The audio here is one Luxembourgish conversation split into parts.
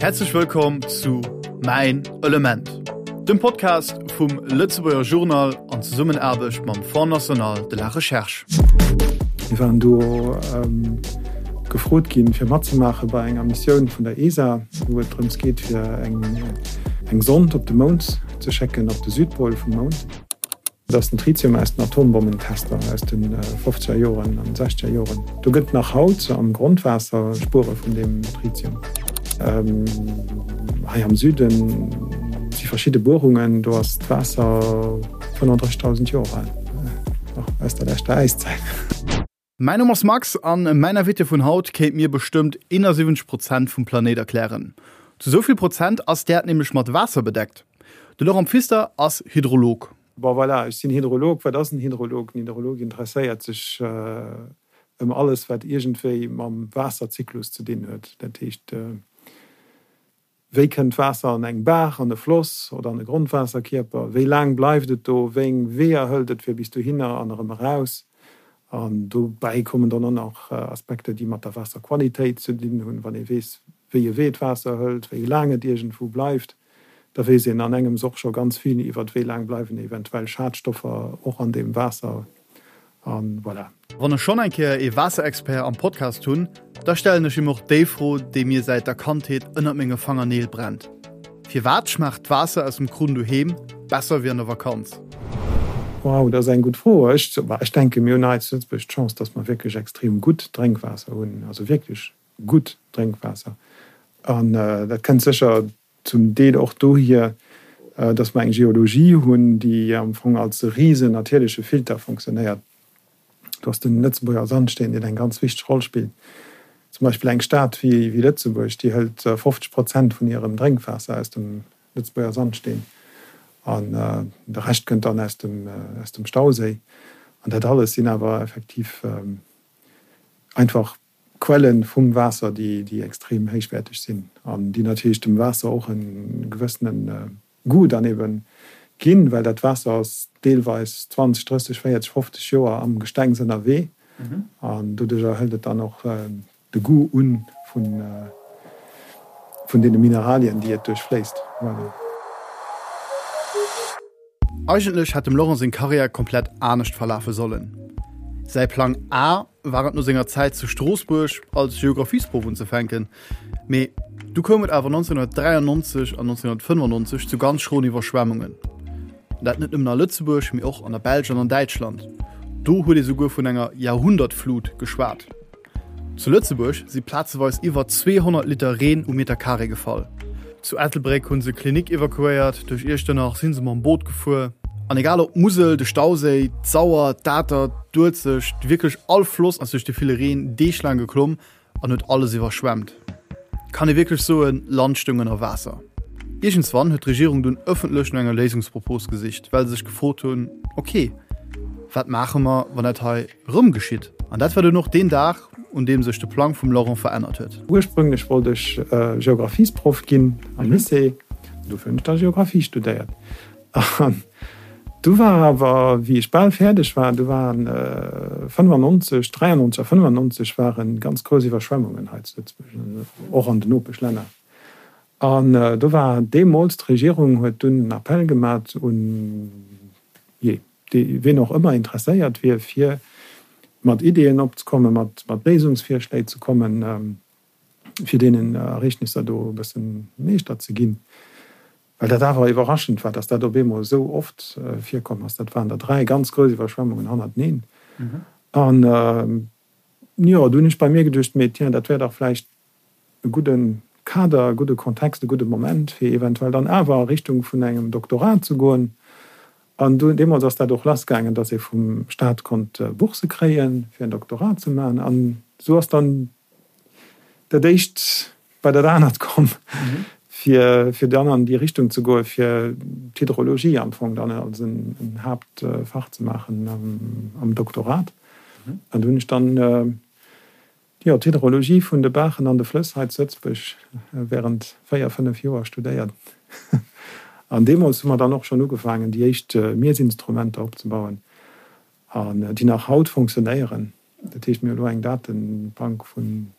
Häerzlech wëllkomm zu Mäin Element, dem Podcast vum Lëtzebuerger Journal an Zesummenaarbecht mam Fonds National de la Recherche. Mir waren do gefrot ginn, fir matzemaache bei enger Missioun vun der ESA, wou et drëms geet, fir eng Sond op de Mound ze schécken, op de Südpol vum Mound. Dat ass den Tritium aus den Atombommentester aus de fofzeger Joren an sechzeger Joren. Do gëtt nach haut am Grondwaasser Spuere vun deem Tritium. Hei am Süde si verschidde Buerungen, do ass d'Waasser 35.000 Joer al, nach aus der leschter Äiszäit. Mäin Numm ass Max an mäin Invité vun haut kéint mir bestëmmt 71 Prozent vum Planéit erklären. Zu sou vill Prozent ass d'Äerd nämlech mat Waasser bedeckt. De Laurent Pfister ass Hydrolog. Bon voilà, ech sinn Hydrolog. Wat ass en Hydrolog? En Hydrolog interesséiert sech ëm alles, wat iergendwéi mam Waasserzyklus ze dinn huet. Dat heescht, Wéi kënnt d'Waasser an eng Baach, an e Floss oder an e Grondwaasserkierper? Wéi laang bleift et do? Wéi eng Weeër hëlt et fir bis dohinner an erëm eraus? An dobäi kommen dann och nach Aspekter, déi mat der Waasserqualitéit ze dinn hunn. Wann ee weess, wéi e Wee d'Waasser hëlt, wéi laang et iergendwou bleift, da weess een an engems och scho ganz vill iwwer wéi laang bleiwen eventuell Schadstoffer och an deem Waasser. A voilà. Wann ech schonn eng Kéier ee Waasserexpert am Podcast hunn, da stellen ech him och déi Fro, déi mir säit der Kandheet ënnert menge Fangerneel brennt, Firwat schmaacht d'Waasser aus dem Krunn doheem besser wéi an der Vakanz? Wow, dat ass eng gutt Fro. Ech, ech denken, mir hunn hei zu Lëtzebuerg d'Chance, dass mer wierklech extrem gutt Drénkwaasser hunn, also wierklech gutt Drénkwaasser. An dat kënnt sécher Zum Deel och dohier, dass mer eng Geologie hunn, déi am Fong als e risen natierleche Filter fonctionnéiert. Do ass den Lëtzebuerger Sandsteen, deen eng ganz wichteg Roll spillt. Zum Beispill eng Stad wéi Lëtzebuerg, déi hëlt 50 Prozent vun hirem Drénkwaasser aus dem Lëtzebuerger Sandsteen an de Rescht kënnt dann aus dem Stauséi. An dat alles sinn awer effektiv einfach Quellen vum Waasser, déi extrem héichwäerteg sinn an déi natierlech dem Waasser och e gewëssene Goût dann ebe ginn, well dat Waasser ass deelweis 20, 30, 40, 50 Joer am Gestengs ënnerwee an doduercher hëlt et dann och de Goût un vun deene Mineralien, déi et duerchfléisst. Voilà. Eigentlech hätt dem Laurent seng Karriär komplett anescht verlafe sollen. Säi Plang A war et no senger Zäit zu Stroossbuerg als Geographiesproff unzefänken, mee du koum et awer 1993 an 1995 zu ganz schroen Iwwerschwemmungen. Dat net nëmmen a Lëtzebuerg, mee och an der Belsch an an Däitschland. Do huet ee souguer vun enger Jahrhundertflut geschwat. Zu Lëtzebuerg si plazeweis iwwer 200 Liter Reen um Meter Carré gefall. Zu Ettelbréck hu se Klinik evakuéiert, duerch Iechternach si se mam Boot gefuer. An egal ob d'Musel, de Stauséi, d'Sauer, d'Atert, d'Uelzecht, wierklech all Floss ass duerch de ville Reen deeglaang geklomm an huet alles iwwerschwemmt. Kann ee wierklech soen, Land stoung ënner Waasser. Iergendswann huet d'Regierung dunn ëffentlech no enger Léisungspropos gesicht, well se sech gefrot hunn, ok, wat maache mer, wann dat hei Rëm geschitt. An dat war dunn och deen Dag, un deem sech de Plang vum Laurent verännert huet. Ursprünglech wollt ech Geographiesproff ginn am Lycée, dofir hunn ech da Geographie studéiert. An du war awer, wéi ech bal fäerdeg war, du waren 95, 93 a 95 ware ganz grouss Iwwerschwemmungen hei zu Lëtzebuerg, och an den Nopeschlänner. An do war deemools, d'Regierung huet dunn en Appell gemat un, jee, dee ween och ëmmer interesséiert wier, fir mat Ideeën opzekommen, mat Léisungsvirschléi ze kommen, fir deenen Ereegnisser do e bësse Meeschter ze ginn. Well dat awer iwwerraschend war, dass dat op eemol esou oft virkomm ass. Dat waren der 3 ganz grouss Iwwerschwemmungen hannerteneen. An jo, do hunn ech bei mir geduecht, mee tiens, dat wär dach vläicht e gudde Kader, e gudde Kontext, e gudde Moment, fir eventuell dann awer a Richtung vun engem Doktorat ze goen. An du, deemools ass dat och lassgaangen, dass ee vum Staat konnt Bourse kréien, fir en Doktorat ze maachen. An esou ass dann dat éischt bei dat anert komm, fir, fir dann an déi Richtung ze goen, fir d'Hydrologie am Fong dann als en Haaptfach ze maachen am Doktorat. An do hunn ech dann Jo, d'Hydrologie vun de Baachen an de Flëss hei zu Lëtzebuerg während 4, 5 Joer studéiert. An deemools hu mer dann och schonn ugefaangen, déi éischt Miessinstrumenter opzebauen, an déi nach haut fonctionnéieren. Dat heescht, mir hu elo eng Datebank vun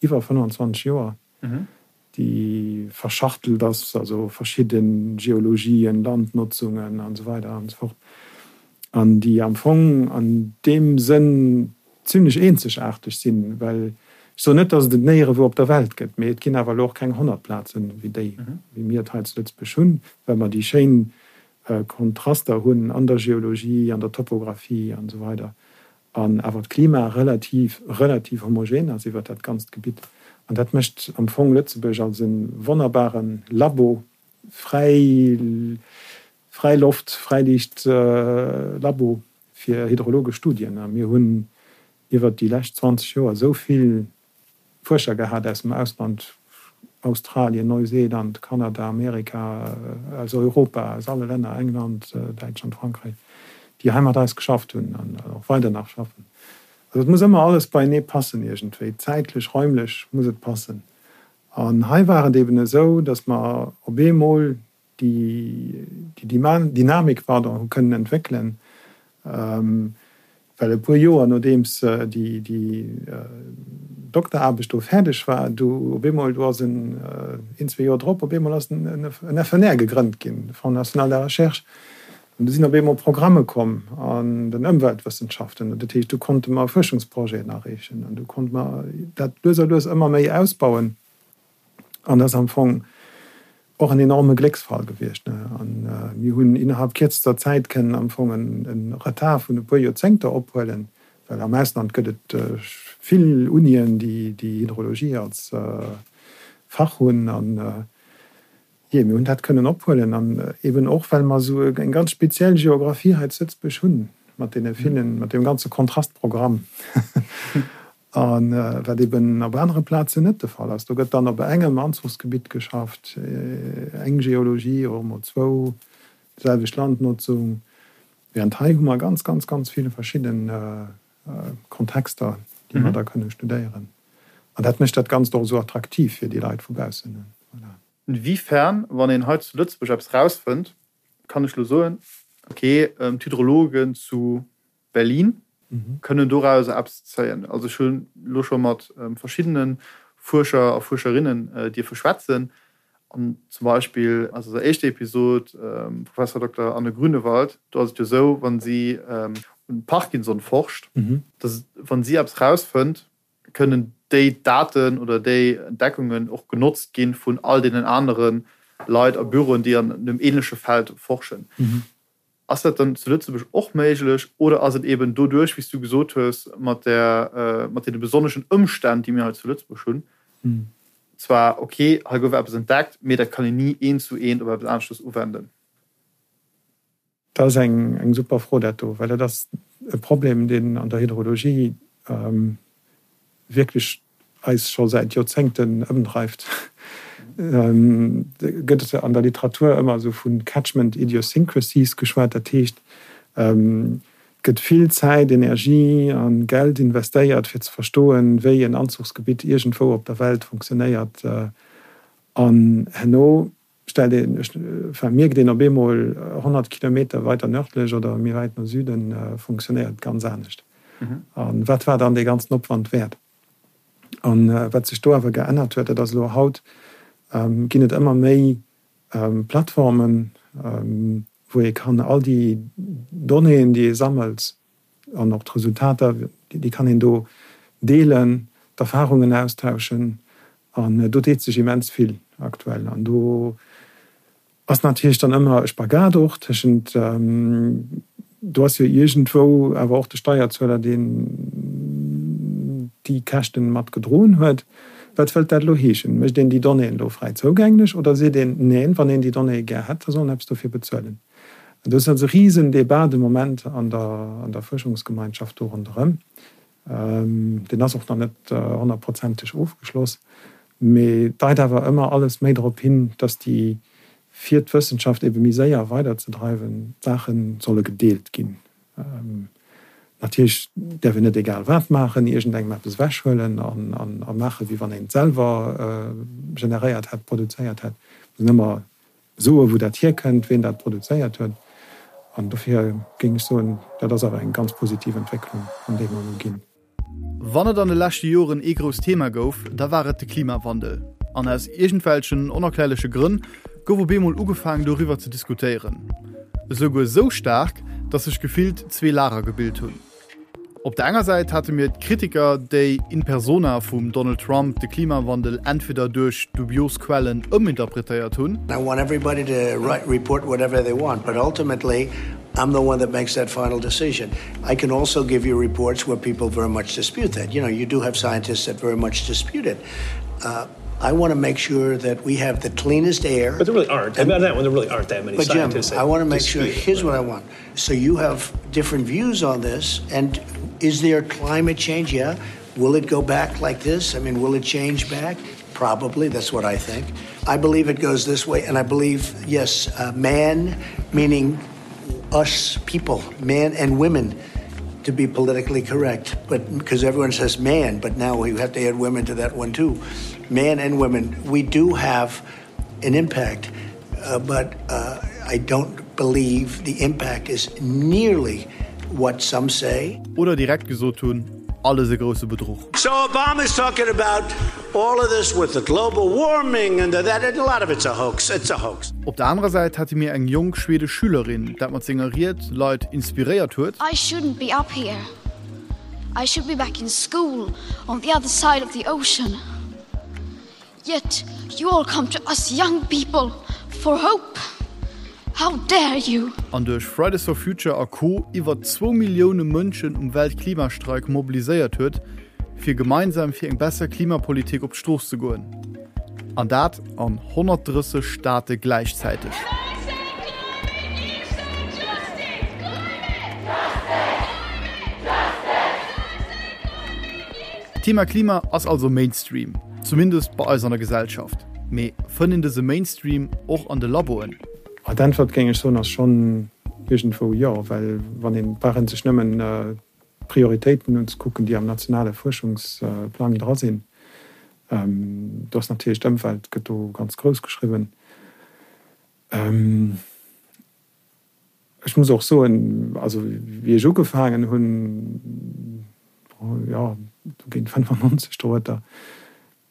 iwwer 25 Joer, déi. déi verschachtelt ass, also verschidde Geologien, Landnotzungen an esou weider an esou fort, an déi am Fong an deem Sënn zimlech eenzegaarteg sinn, well ech soen net, datt et et néierewou op der Welt gëtt, mee et ginn awer elo och keng 100 Plazen wéi déi, wéi mir et hei zu Lëtzebuerg hunn, well mer déi schéin Kontraster hunn an der Geologie, an der Topographie an esou weider an awer d'Klima relativ, relativ homogen ass iwwert dat ganzt Gebitt. An dat mécht am Fong Lëtzebuerg als e wonnerbare Labo, fräi, fräi Loft, Fräiliicht Labo fir hydrologesch Studien. A mir hunn iwwert déi lescht 20 Joer esou vill Fuerscher gehat aus dem Ausland, Australien, Neuseeland, Kanada, Amerika, aus Europa, aus alle Länner, England, Däitschland, Frankräich, déi hei mat eis geschafft hunn an och weider nach schaffen. Also et muss ëmmer alles beienee passen iergendwéi, zäitlech, räumlech muss et passen. An hei war et eben esou, datt mer op eemol déi Dynamik pardon, hu kënnen entwéckelen, well e puer Joer nodeems déi Dokteraarbecht do fäerdeg war, du op eemol, do ass en, een, zwee Joer drop, op eemol ass en FNR gegrënnt ginn, de Fonds national de la recherche, an du sinn op eemol Programme komm an den Ëmweltwëssenschaften, dat heescht, du konnte mer Fuerschungsprojeten areechen an du konnte mer dat lues a lues ëmmer méi ausbauen. An dat ass am Fong och en enorme Glécksfall gewiescht. A mir hunn innerhalb kierzester Zäit kënnen am Fong e Retard vun e puer Joerzéngter ophuelen, well am Ausland gëtt et vill Unien, déi Hydrologie als Fach hunn. An jee, mir hunn dat kënnen ophuelen. An eeben och, well mer esou eng ganz speziell Geographie hei zu Lëtzebuerg hunn, mat deene villen, mat deem ganze Kontrastprogramm. A wat eben op anere Plazen net de Fall ass. Do gëtt dann op engem Anzuchsgebitt geschafft, eng Geologie oder emol zwou, déiselwecht Landnotzung, während hei hu mer ganz, ganz, ganz vill verschidde Kontexter, déi mer da kënne studéieren. An dat mécht dat Ganzt och esou attraktiv fir déi Leit vu baussen. Voilà. Inwiefern, wann een hei zu Lëtzebuerg eppes rausfënnt, kann ech elo soen, okay, d'Hydrologen zu Berlin kënnen dorauser eppes zéien. Also ech hunn elo scho mat verschiddene Fuerscher a Fuerscherinnen dierfe schwätzen an zum Beispill aus eiser éischter Episod, Professor Dokter Anne Grünewald, do ass et jo esou, wa si un Parkinson forscht, dass wa si eppes rausfënnt, kënnen déi Daten oder déi Entdeckungen och genotzt gi vun all deenen anere Leit a Büroen, déi an deem änleche Feld forschen. Ass dat dann zu Lëtzebuerg och méiglech oder ass et eben doduerch, wéi s du gesot hues, mat där, mat deene besonneschen Ëmstänn, déi mir hei zu Lëtzebuerg hunn, zwar ok, hei gouf eppes entdeckt, mee dat kann een ni eent zu eent op eppes aneschtes uwenden? Dat ass eng super Fro, dat do, well dat ass e Problem, deen an der Hydrologie wierklech eis scho säit Joerzéngten ëmdreift, gëtt et an der Literatur ëmmer esou vu Catchment idiosyncrasies geschwat. Dat heescht, et gëtt vill Zäit, Energie a Geld investéiert, fir ze verstoen, wéi en Anzuchsgebitt iergendwou op der Welt funktionéiert. An herno stellt een, enfin, mierkt een op eemol, 100 Kilometer weiter nördlech oder méi wäit no Süden funktionéiert et ganz anescht. A wat war dann dee ganzen Opwand wäert? A wat sech do awer geännert huet, dat ass elo haut ginn et ëmmer méi Plattformen, wou ee kann all déi Donnéeën, déi ee sammelt, an och d'Resultater, déi kann een do deelen, d'Erfarungen austauschen an do deet sech immens vill aktuell. An do ass natierlech dann ëmmer e Spagat och tëschent, do ass jo iergendwou awer och de Steierzueler, deen déi Käschten mat gedroen huet. Wat wëllt dat elo heeschen? Mécht een déi Donnéeën elo fräi zougänglech oder seet een, neen, wann een déi Donnéeë gär hätt, da soll en eppes dofir bezuelen? Do ass also e Risendebat de Moment an der Fuerschungsgemeinschaft do ronderëm. Deen ass och nach net honnertprozenteg ofgeschloss, mee deit awer ëmmer alles méi drop hin, datt déi, fir d'Wëssenschaft ebe méi séier weiderzedreiwen, d'Saache solle gedeelt ginn. Natierlech däerf een net egal wat maachen, iergendengem eppes ewechhuelen a maachen, wéi wann een et selwer generéiert hätt, produzéiert hätt. Et muss een ëmmer Soe wou dat hierkënnt, ween dat produzéiert huet. An dofir géing ech soen, dat ass awer eng ganz positiv Entwécklung, an déi mer elo ginn. Wann et an de leschte Joren ee grousst Thema gouf, da war et de Klimawandel. An aus iergendwelchen onerklärleche Grënn gouf op eemol ugefaangen doriwwer ze diskutéieren. Esouguer esou staark, datt sech gefillt zwee Lager gebilt hunn. Op der enger Säit hate mir d'Kritiker, déi in persona vum Donald Trump de Klimawandel entweder duerch dubios Quellen ëminterpretéiert hunn, I want everybody to write, report whatever they want, but ultimately I'm the one that makes that final decision. I can also give you reports where people very much dispute that. You know, you do have scientists that very much dispute it. Uh, I want to make sure that we have the cleanest air. But there really aren't. And, I mean, that one, there really aren't that many but Jim, scientists. I want to make sure. Here's what I want. So you have different views on this. And is there climate change? Yeah. Will it go back like this? I mean, will it change back? Probably. That's what I think. I believe it goes this way. And I believe, yes, uh, man, meaning us people, man and women, to be politically correct. But because everyone says man, but now we have to add women to that one too. Man and women, we do have an impact, uh, but uh, I don't believe the impact is nearly what some say. Oder direkt gesot hunn, alles e grousse Bedruch. So Obama is talking about all of this with the global warming and the that and a lot of it's a hoax. It's a hoax. Op der anerer Säit hate mir eng jonk schwedesch Schülerin, dat mat senger Ried Leit inspiréiert huet. I shouldn't be up here. I should be back in school on the other side of the ocean. Yet you all come to us young people for hope. How dare you! An duerch Fridays for Future a Co. Iwwer zwou Millioune Mënschen um Weltklimastreik mobiliséiert huet, fir gemeinsam fir eng besser Klimapolitik op d'Strooss ze goen. An dat an 130 Staate gläichzäiteg. D'Thema Klima ass also Mainstream. Zumindest bei eis an der Gesellschaft. Mee fënnt een dëse Mainstream och an de Laboen? D'Äntwert, géing ech soen, ass schonn iergendwou jo, well wann een, brauch een sech nëmmen d'Prioritéiten unzekucken, déi am nationale Fuerschungsplang dra sinn. Do ass natierlech d'Ëmwelt gëtt do ganz grouss geschriwwen. Ech muss och soen, also wéi ech ugefaangen hunn, jo, do géint 95 dorueter,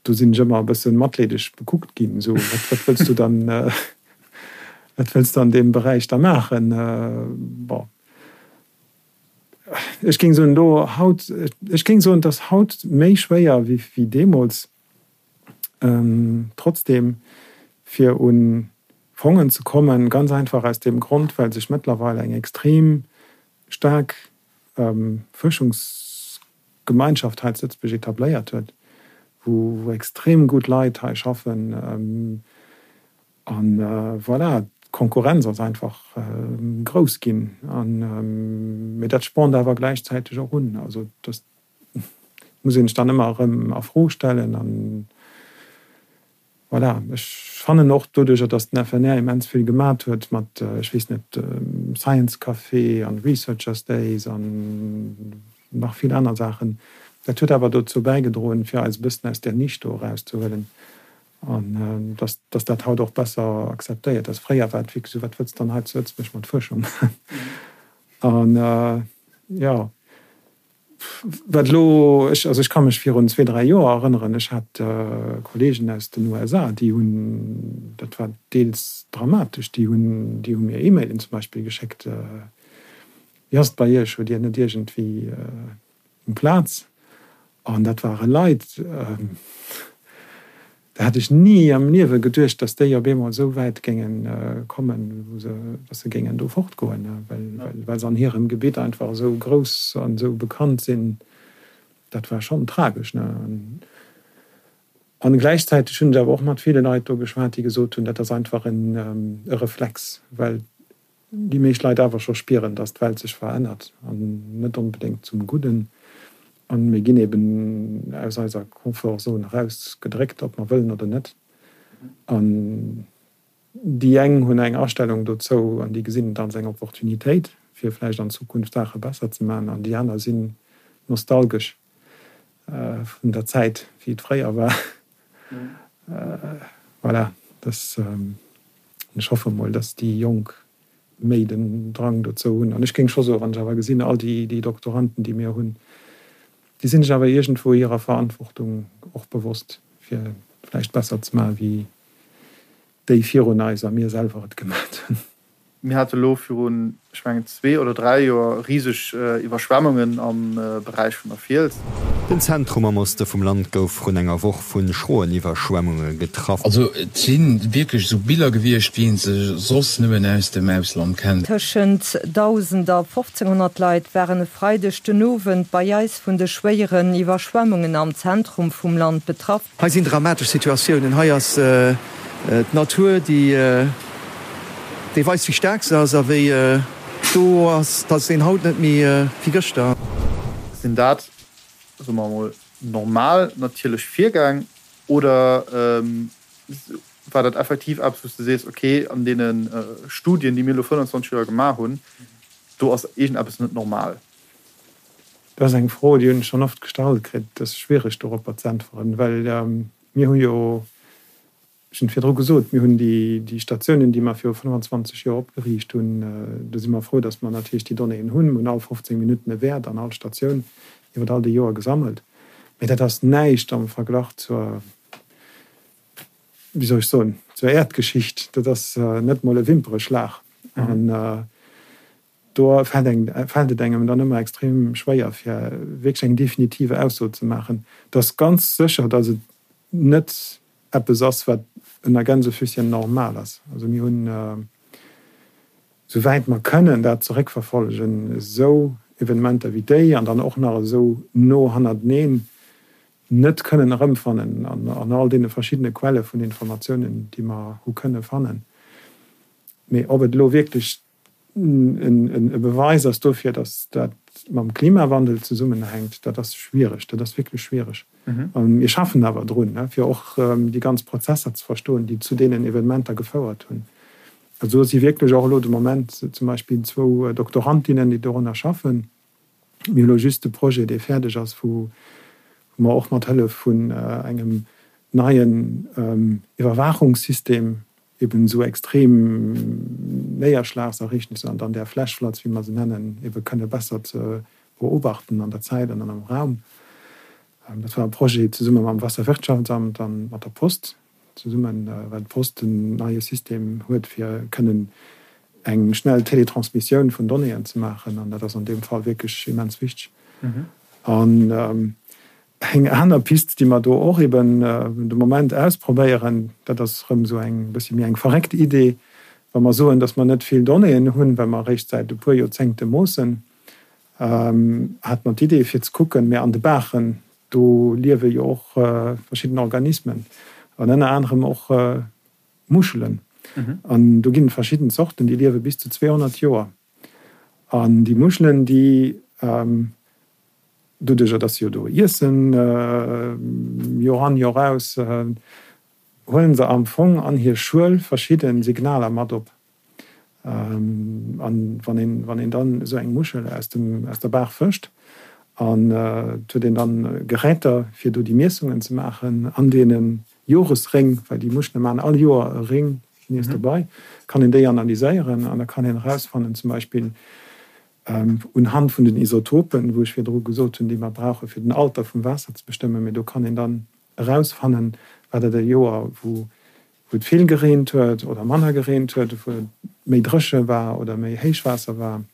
do sinn ech ëmmer e bësse matleedeg bekuckt ginn, esou, wat, wat wëlls du dann, wat wëlls du an deem Beräich da maachen? Bon, ech géing soen, elo haut, ech géing soen, et ass haut méi schwéier wéi, wéi deemools. Trotzdem, fir un Fongen ze kommen, ganz einfach aus deem Grond, well sech mëttlerweil eng extrem staark Fuerschungsgemeinschaft hei zu Lëtzebuerg etabléiert huet, wou extrem gutt Leit hei schaffen. A voilà, d'Konkurrenz ass einfach grouss ginn. Mee dat spornt awer gläichzäiteg och un. Also dass muss een sech dann ëmmer erëm a Fro stellen. An voilà, ech fannen och doduercher, datt den FNR immens vill gemat huet mat, ech weess net, Science Café an Researchers Days an nach vill aner Saachen, dat huet awer dozou bäigedroen, fir eis e bëssen aus där Nisch do erauszehuelen an datt datt dat haut och besser akzeptéiert ass. Fréier war et wierklech esou, wat wëlls de dann hei zu Lëtzebuerg mat Fuerschung? An jo. Wat elo, ech, also ech ka mech virun zwee, dräi Joer erënneren, ech hat Kollegen aus den USA, déi hunn, dat war deels dramatesch, déi hunn, déi hu mir E-Mailen zum Beispill geschéckt, Wéi ass et bei Iech, hutt Dir net iergendwéi eng Plaz? An dat ware Leit, Da hätt ech ni am Liewe geduecht, datt déi op eemol esou wäit géinge kommen, wou se, datt se géingen do fortgoen, well, well se an hirem Gebitt einfach esou grouss an esou bekannt sinn. Dat war schonn tragesch, ne? An gläichzäiteg hunn ech awer och mat ville Leit do geschwat, déi gesot hunn, dat ass einfach en e Reflex, well déi meescht Leit awer scho spieren, dass d'Welt sech verännert an net onbedéngt zum Gudden. A mir ginn eben aus eiser Confort-Zone erausgedréckt, ob mer wëllen oder net. An déi eng hunn eng Astellung dozou an déi gesinn et als eng Opportunitéit, fir vläicht an Zukunft Saache besser ze maachen, an déi aner sinn nostalgesch vun der Zäit, wéi et fréier war. Voilà, dass, ech hoffe mol, dass déi Jonk méi den Drang dozou hunn. An ech géing scho soen, wann ech awer gesinn, all déi, déi Doktoranden, déi mir hunn, déi sinn sech awer iergendwou hirer Verantwortung och bewosst, fir. vläicht besser ze maachen, wéi déi virun eis a mir selwer et gemat hunn. Mir hate lo virun, ech mengen, zwee oder dräi Joer riseg Iwwerschwemmungen am Beräich vun der Fiels. Den Zentrum am Oste vum Land gouf vrun enger Woch vu schroen Iwwerschwemmunge getraff. Also et si wierklech esou Biller gewiescht, wéi een se soss nëmmen aus dem Ausland kennt. Tëschent 1.000 a 1.500 Leit waren e Freideg den Owend bei eis vun de schwéieren Iwwerschwemmungen am Zentrum vum Land betraff. Hei sinn dramatesch Situatiounen. Hei ass d'Natur, déi weist, wéi staark se ass a wéi do ass, dass een haut net méi wéi gëschter. Sinn dat, soe mer emol, normal natierlech Virgäng oder war dat effektiv eppes, wou s de sees, okay, an deene Studien, déi mir elo 25 Joer gemaach hunn, do ass iergendeppes net normal? Dat ass eng Fro, déi hunn ech schonn oft gestallt kritt. Et ass schwiereg doropper ze äntweren, well mir hu jo, ech hunn et virdru gesot, mir hunn déi Statiounen, déi mer viru 25 Joer opgeriicht hunn, do si mer frou, datt mer natierlech déi Donnéeën hunn. Mir hunn all 15 Minutten e Wäert an all Statioun iwwer all déi Joer gesammelt. Mee dat ass näischt am Verglach zur, wéi soll ech soen, zur Äerdgeschicht. Dat ass net mol e Wimpereschlag. An Do fält et engem dann ëmmer extrem schwéier, fir wierklech eng definitive Ausso ze maachen. Et ass ganz sécher, datt et net eppes ass, wat ënner Gänsefüsschen normal ass. Also mir hunn, souwäit mer kënnen dat zeréckverfollegen, esou Evenementer wéi déi an dann och nach esou no hannerteneen net kënnen erëmfannen an all deene verschiddene Quelle vun Informatiounen, déi mer hu kënne fannen. Mee ob et elo wierklech e Beweis ass dofir, datt dat mam Klimawandel zesummenhänkt, dat ass schwiereg. Dat ass wierklech schwiereg. Mir schaffen awer drun, fir och déi ganz Prozesser ze verstoen, déi zu deenen Evenementer gefouert hunn. Also do si wierklech och elo de Moment zum Beispill zwou Doktorandinnen, déi dorunner schaffen. Mir hu elo just de Projet, dee fäerdeg ass, wou mer och mat Hëllef vun engem neien Iwwerwaachungssystem eben esou extrem Néierschlagsereegnisser an dann där Flash Floods, wéi mer se nennen, ebe kënne besser ze beobachten an der Zäit an dann am Raum. Dat war e Projet zesumme mam Wasserwirtschaftsamt a mat der Post zesummen, well d'Post en neie System huet, fir kënnen eng schnell Teletransmissioun vun Donnéeën ze maachen. An dat ass an deem Fall wierklech immens wichteg. An Eng aner Pist, déi mer do och eben de Moment ausprobéieren, dat ass erëm esou eng bëssi méi eng verréckt Idee, wa mer soen, datt mer net vill Donnéeën hunn, well mer eréischt säit e puer Joerzéngte moossen, hate mer d'Idee fir ze kucken, mä an de Baachen, do liewe jo och verschidden Organismen an ënner anerem och Muschelen. An do ginn et verschidden Zorten, déi liewe bis zu 200 Joer. An déi Muschelen, déi Doduercher dass se jo do iessen, Joer an Joer aus, huelen se am Fong an hir Schuel verschidde Signaler mat op. An wann een, wann een dann esou eng Muschel aus dem, aus der Baach fëscht, an et huet een dann Geräter fir do déi Miessungen ze maachen an deene Joresréng, well déi Muschele maachen all Joer e Ring nees dobei, kann een déi analyséieren an da kann een erausfannen zum Beispill, Unhand vun den Isotopen, wou ech virdru gesot hunn, déi mer brauche fir den Alter vum Waasser ze bestëmmen, mee do kann een dann erausfannen, war dat e Joer, wou et vill gereent huet oder manner gereent huet, wou et méi dréche war oder méi Héichwaasser war.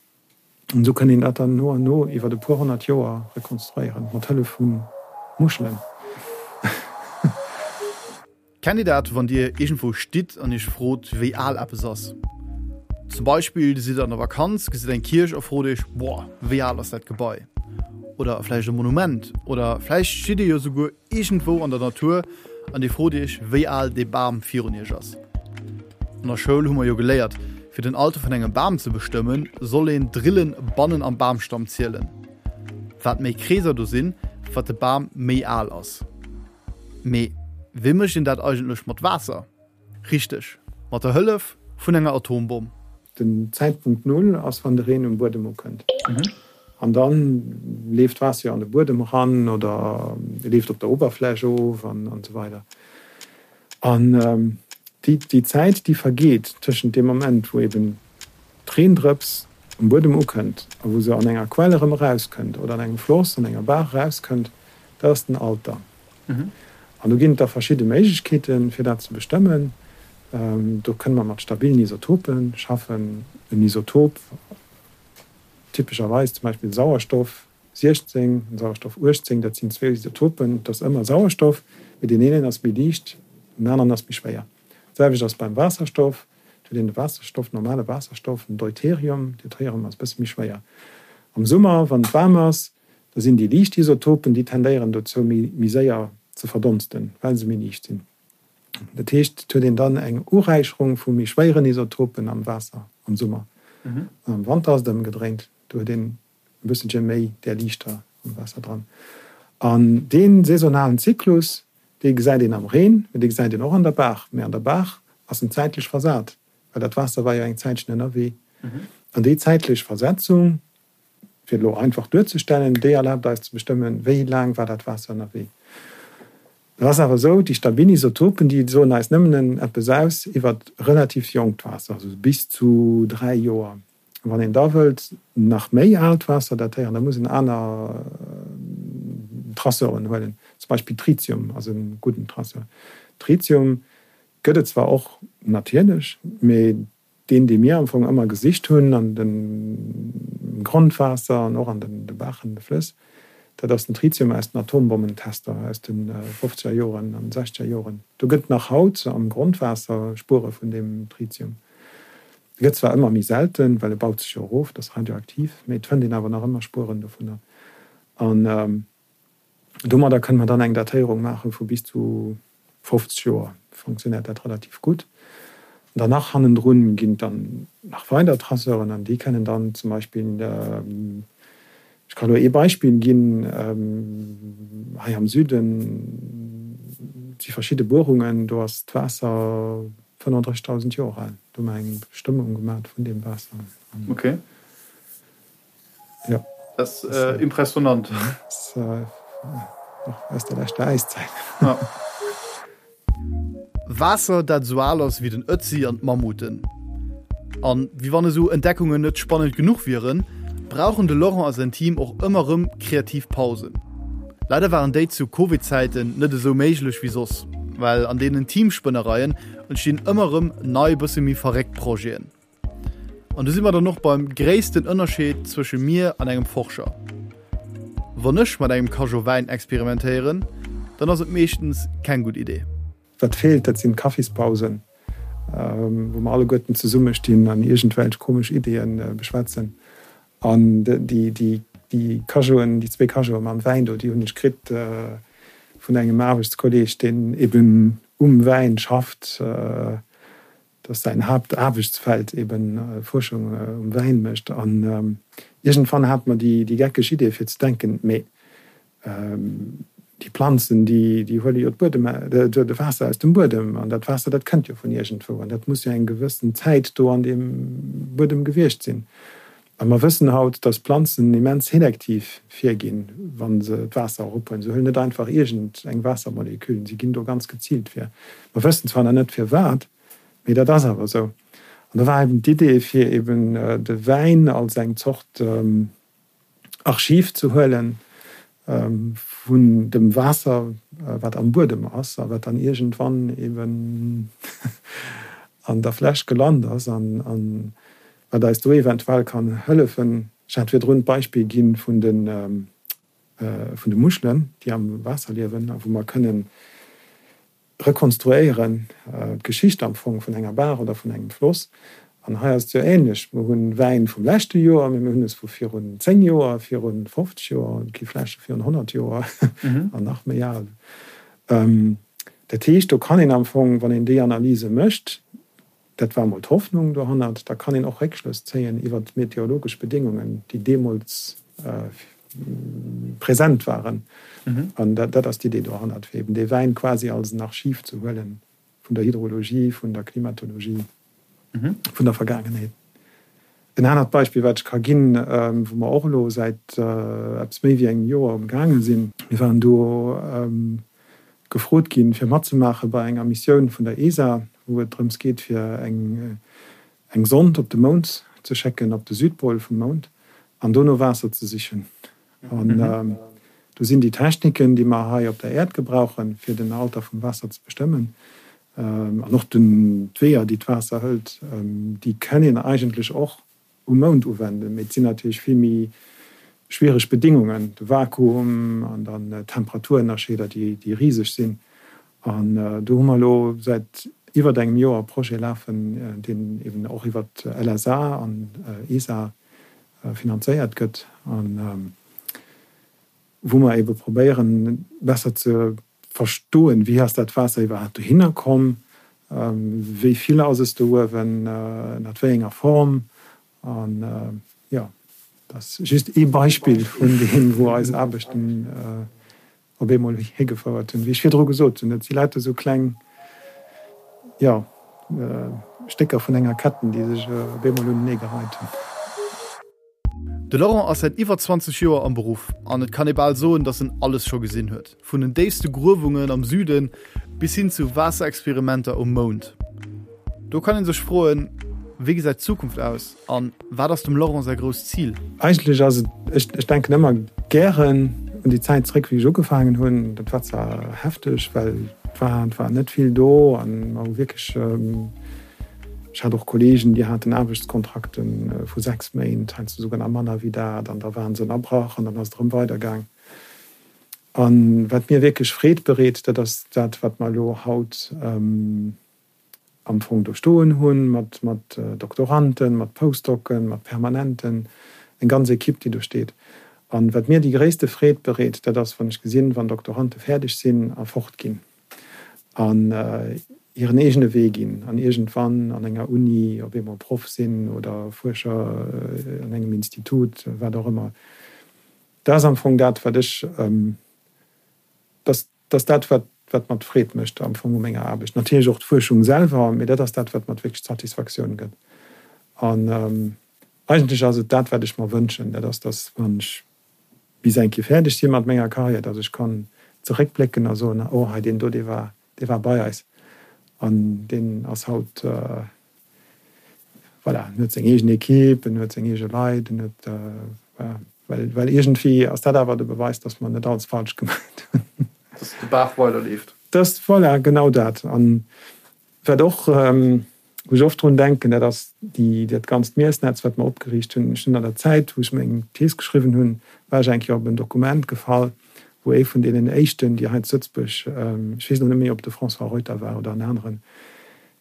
An esou kënn een dat dann no an no iwwer e puer 100 Joer rekonstruéieren, mat Hëllef vu Muschelen. Kennt dir dat, wann dir iergendwou stitt an iech frot, wéi al eppes ass? Zum Beispill, dir sidd an der Vakanz, gesitt eng Kierch a frot iech, Boah, wéi al ass dat Gebai? Oder vläicht e Monument. Oder vläicht stitt dir jo souguer iergendwou an der Natur an dir frot iech, wéi al dee Bam virun iech ass. An der Schoul hu mer jo geléiert, fir den Alter vun engem Bam ze bestëmmen, soll een d'Rillen bannen am Bamstamm zielen. Wat méi Kreeser do sinn, wat de Bam méi al ass. Mee wéi mécht een dat eigentlech mat Waasser? Richteg, mat der Hëllef vun enger Atombomm. Den Zäitpunkt Null ass wann de Reen um Buedem ukënnt. An da leeft d'Waasser jo an de Buedem eran oder leeft op der Oberfläch of an esou weider. An déi Zäit déi vergeet tëschent deem Moment wou eben d'Reendrëps um Buedem ukënnt a wou se an enger Quell erëm erauskënnt oder an engem Floss, an enger Baach erauskënnt, Dat ass den Alter. An do ginn et da verschidde Méiglechkeeten, fir dat ze bestëmmen. Do kënne mer mat stabilen Isotope schaffen. En Isotop, typescherweis zum Beispill Sauerstoff 16 an Sauerstoff 18, dat sinn zwou Isotopen, et ass ëmmer Sauerstoff, mee deen eenen ass méi liicht, den aneren ass méi schwéier. D'selwecht ass beim Waasserstoff, do huet een de Waasserstoff, normale Waasserstoff, den Deuterium, Deuterium ass e bësse méi schwéier. Am Summer, wann et waarm ass, Da sinn déi liicht Isotopen, déi tendéieren dozou méi méi séier ze verdonsten, well se méi liicht sinn. Dat heescht, et huet een dann eng Uräicherung vu méi schwéieren Isotopen am Waasser am Summer. An am Wanter ass et ëmgedréint, do huet een e bësselche méi där liichter am Waasser dran. An dee saisonalen Zyklus, dee gesäit een am Reen, mee dee gesäit een och an der Baach. Mee an der Baach ass en zäitlech versat, well dat Waasser war jo eng Zäitchen ënnerwee. An déi zäitlech Versetzung, Fir et elo einfach duerzestellen, déi erlaabt eis ze bestëmmen, wéi laang war dat Waasser ënnerwee. Et ass awer esou, déi stabil Isotopen, déi soen eis nëmmen eppes aus iwwer relativ jonkt Waasser, also bis zu 3 Joer. Wann een da wëllt nach méi aalt Waasser datéieren, da muss een aner Traceuren huelen, zum Beispill Tritium ass e gudden Traceur. Tritium gëtt et zwar och natierlech, mee Deen, dee mir am Fong ëmmer gesicht hunn an dem Grondwaasser an och an de Baachen, de Flëss, dat ass den Tritium aus den Atombommentester aus de fofzeger Joren an sechzeger Joren. Do gëtt nach haut am Grondwaasser Spuere vun deem Tritium. E gëtt zwar ëmmer méi selten, well e baut sech jo erof, et ass radioaktiv, mee et fënnt een awer nach ëmmer Spueren dovunner. An Domadder kënne mer dann eng Datéierung maache vu bis zu 50 Joer. Fonctionnéiert dat relativ gutt. An dann nach hannendrun ginn et dann nach weider Traceuren an déi kënnen dann zum Beispill, ech ka elo ee Beispill ginn, hei am Süden si verschidde Buerungen, do ass d'Waasser 35.000 Joer al. Do hu mer eng Bestëmmung gemaach vun deem Waasser. Okay. Ja. Dat ass impressionant. Och aus der leschter Äiszäit. Ja. Waasser, dat esou al ass wéi den Ötzi an d'Mammuten. An wéi wann esou Entdeckungen net spannend genuch wieren, brauchen de Laurent a säin Team och ëmmer erëm kreativ Pausen. Leider waren déi zu Covid-Zäiten net esou méiglech wéi soss, well an deenen Teamspënnereien entstinn ëmmer erëm nei bësse méi verréckt Projeten. An do si mer dann och beim gréissten Ënnerscheed zwësche mir an engem Forscher. Wann ech mat engem Cageot Wäin experimentéieren, dann ass et meeschtens keng gutt Idee. Wat feelt, dat sinn d'Kaffispausen, wou mer alleguerten zesummestinn an iergendwelch komesch Ideeë beschwätzen. An déi Cageoten, déi zwee Cageote mam Wäin do, déi hunn ech kritt vun engem Aarbechtskolleeg, deen eben um Wäin schafft. dass säin Haaptaarbechtsfeld eben Fuerschung um Wäin mécht. An iergendwann hate mer déi geckeg Idee fir ze denken, mee déi Planzen, déi huele jo d'Buedem, de Waasser aus dem Buedem, an dat Waasser, dat kënnt jo vun iergendwou, an dat muss jo eng gewëssen Zäit do an deem Buedem gewiescht sinn. A mer wëssen haut, dass Planzen immens selektiv virginn, wa se d'Waasser erophuelen. Se huelen net einfach iergend eng Waassermolekül, si ginn do ganz geziilt vir. Mer wëssen zwar nach net firwat, mee dat ass awer esou. An da war eben d'Idee, fir eben de Wäin als eng Zort Archiv ze huelen vun dem Waasser, wat am Buedem ass a wat dann iergendwann eben an der Fläsch gelant ass an wat eis do eventuell kann hëllefen. Ech hat virdrun d'Beispill gi vun de vun de Muschelen, déi am Waasser liewen a wou mer kënnen rekonstruéieren, d'Geschicht am Fong vun enger Baach oder vun engem Floss. An hei ass et jo änlech, Mer hunn Wäin vum leschte Joer, mee mir hunn es vu virun 10 Joer, viru 50 Joer, et gi Fläsche virun 100 Joer an nach méi al. Dat heescht, do kann een am Fong, wann een déi Analyse mécht, Dat war emol d'Hoffnung dohannert. Da kann een och Réckschlëss zéien iwwer d'meteorologesch Bedéngungen, déi deemools present waren. An dat ass d'Idee dohannert, fir eben dee Wäin quasi als en Archiv ze huelen vun der Hydrologie, vun der Klimatologie, vun der Vergaangenheet. En anert Beispill, wat ech ka ginn, wou mer och elo säit eppes méi wéi engem Joer umgaange sinn, Mir waren do gefrot ginn, fir matzemaache bei enger Missioun vun der ESA, wou et drëms geet, fir eng Sond op de Mound ze schécken, op de Südpol vum Mound, an do no Waasser ze sichen. An. Do sinn déi Techniken, déi mer hei op der Äerd gebrauchen, fir den Alter vum Waasser ze bestëmmen, an och d'Weeër, déi d'Waasser hëlt, déi kënn een eigentlech och um Mound uwenden. Mee et sinn natierlech vill méi schwiereg Bedingungen, de Vakuum an dann d'Temperaturënnerscheeder, déi riseg sinn. An do hu mer elo säit iwwert engem Joer e Projet lafen, deen eben och iwwert LSA an ESA finanzéiert gëtt an wou mer ebe probéieren, besser ze verstoen, wéi ass dat Waasser iwwerhaapt dohinner komm, wéi vill ass es do uewen, ënnert wéi enger Form. An jo, dat ass just ee Beispill vun deem, wou eis Aarbechten op eemol higefouert hunn. Wéi ech virdru gesot hunn, et si lauter esou kleng, jo, Stécker vun enger Ketten, déi sech op eemol unenee gereit hunn. De Laurent ass säit iwwer 20 Joer am Beruff an et kann ee bal soen, datt en alles scho gesinn huet, vun den déifste Gruewungen am Süden bis hin zu Waasserexperimenter um Mound. Do kann ee sech froen, Wéi gesäit d'Zukunft aus an wat ass dem Laurent säi grousst Zil? Eigentlech ass et, ech, ech denken ëmmer gären un déi Zäit zréck, wéi ech ugefaangen hunn. Dat war zwar hefteg, well et war, et war net vill do an mer hu wierklech, Ech hat och Kollegen, déi haten Aarbechtskontrakte vu 6 Méint, heiansdo souguer nach manner wéi dat, an da waren se ënnerbrach an dann ass et erëm weidergaang. A wat mir wierklech Freed bereet, dat ass dat, wat mer elo haut am Fong do stoen hunn, mat Doktoranden, mat Postdocen, mat Permanenten, eng ganz Ekipp, déi do steet. A wat mir déi gréisste Freed bereet, dat ass, wann ech gesinn, wann Doktorande fäerdeg sinn a fortginn. an hiren eegene Wee ginn an iergendwann an enger Uni op eemol Proff sinn oder Fuerscher an engem Institut, wat och ëmmer. Dat ass am Fong dat, wat ech, dat ass dat, wat wat mer d'Freed mécht am Fong u menger Aarbecht. Natierlech och d'Fuerschung selwer, mee dat ass dat, wat mer wierklech d'Satisfaktioun gëtt. An eigentlech ass et dat, wat ech mer wënschen, dat ass, datt wann ech bis eng Kéier fäerdeg si mat menger Karriär, datt ech kann zeréckblécken a soen, oh hei deen do, dee war, dee war bei eis an deen ass haut, voilà, en huet seng eegen Equipe, en huet seng eege Leit, en huet, voilà, well, well iergendwéi ass dat awer de Beweis, datt mer net alles falsch gemaach hunn. Datt de Baach weiderleeft. Datt, voilà, genau dat. An Wat och, wou ech oft drun denken, dat ass déi, dat ganzt Miessnetz, wat mer opgeriicht hunn. Ech hunn an der Zäit, wou ech meng Thees geschriwwen hunn, war ech eng Kéier op en Dokument gefall, wou ee vun deenen éischten, déi hei zu Lëtzebuerg, ech weess elo net méi, ob et de François Reuter war oder en aneren,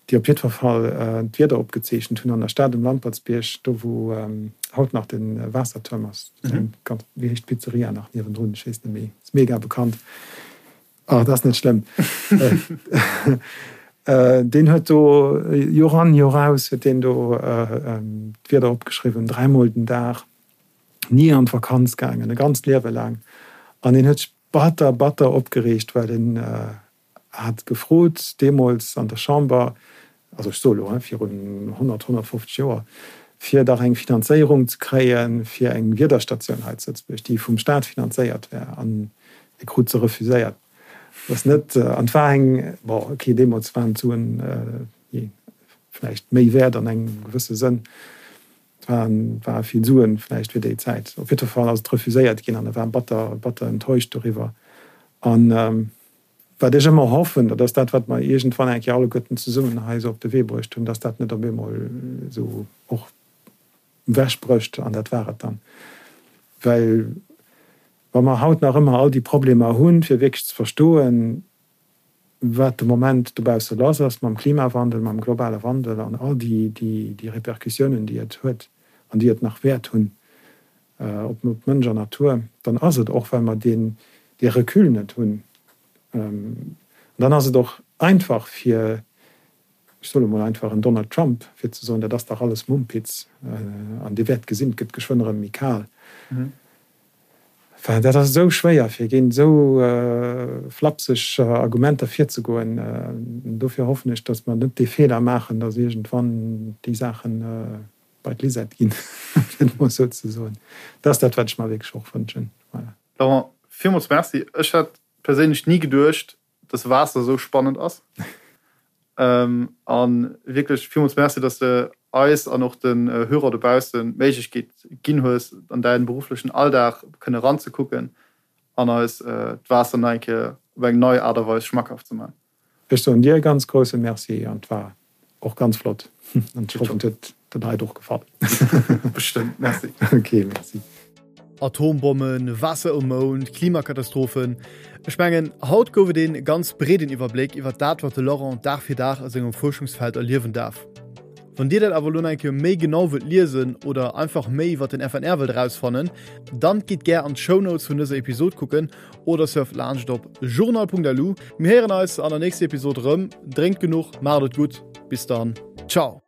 déi op jiddwer Fall d'Wieder opgezeechent hunn an der Stad um Lampertsbierg, do wou haut nach de Waassertuerm ass, ganz, wéi heescht d'Pizzeria nach niewendrun, ech weess net méi, ass mega bekannt. Oh, dat ass net schlëmm. Deen huet do Joer an, Joer aus huet deen do d'Wieder opgeschriwwen, dräimol den Dag, ni an d'Vakanz gaangen, e ganzt Liewe laang. An deen huet sech batter, batter opgereegt, well en hat gefrot deemools an der Chamber, also ech soe lo, virun 100, 150 Joer, fir dach eng Finanzéierung ze kréie fir eng Wiederstatioun hei zu Lëtzebuerg, déi vum Staat finanzéiert wär. An e krut se refuséiert. Dat ass net, an et war eng, bon, okay, deemools waren d'Suen vläicht méi wäert an engem gewësse Sënn, et waren, ware vill Suen vläicht fir déi Zäit. Op jiddwer Fall ass et refuséiert ginn an e war batter, batter enttäuscht doriwwer. An Wat ech ëmmer hoffen, dat ass dat, wat mer iergendwann eng Kéier alleguerten zesummen hei esou op de Wee bruecht hunn, dass dat net op eemol esou och ewechbrécht an dat war et dann. Well wa mer haut nach ëmmer all déi Problemer hunn, fir wierklech ze verstoen, wat de Moment dobausse lass ass mam Klimawandel, mam globale Wandel an all déi Répercussiounen, déi et huet an déi et nach wäert hunn, op Mënsch an Natur, dann ass et och, well mer deen, dee Recul net hunn, an dann ass et och einfach fir, ech soe mol einfach en Donald Trump, fir ze soen, dat ass dach alles Mumpitz an Dir wäert gesinn, et gëtt geschwënn erëm méi kal. Enfin, dat ass esou schwéier, fir géint esou flapseg Argumenter virzegoen. Dofir hoffen ech, datt mer net dee Feeler maachen, datt iergendwann déi Saachen, bei d'Lisette ginn, fir et mol esou ze soen. Dat ass dat, wat ech mer wierklech och wënschen. Voilà. Laurent, villmools Merci. Ech hätt perséinlech ni geduecht, dass Waasser esou spannend ass. A wierklech villmools Merci, dass de eis an och den Hörer dobaussen d'Méiglechkeet ginn hues, an däin berufflechen Alldag kënne ranzekucken. an eis d'Waasser nach eng Kéier op eng nei Aart a Weis schmackhaft ze man. Ech soen dir e ganz grousse Merci an et war och ganz flott an ech hoffen et huet de Leit och gefall. Bestëmmt, merci. Ok, merci. Atombommen, Waasser um Mound, Klimakatastrophen, ech mengen haut gouf et een ganz breeden Iwwerbléck iwwert dat wat de Laurent Dag fir Dag a sengem Fuerschungsfeld erliewen daarf. Wann dir dat awer elo nach eng Kéier méi genau wëllt liesen oder einfach méi iwwert den FNR wëllt erausfannen, dann gitt gär an d'Shownotes vun dëser Episod kucken oder surft laanscht op journal.lu. Mir héieren eis an der nächster Episod erëm. Drénkt genuch, maacht et gutt, bis dann, ciao!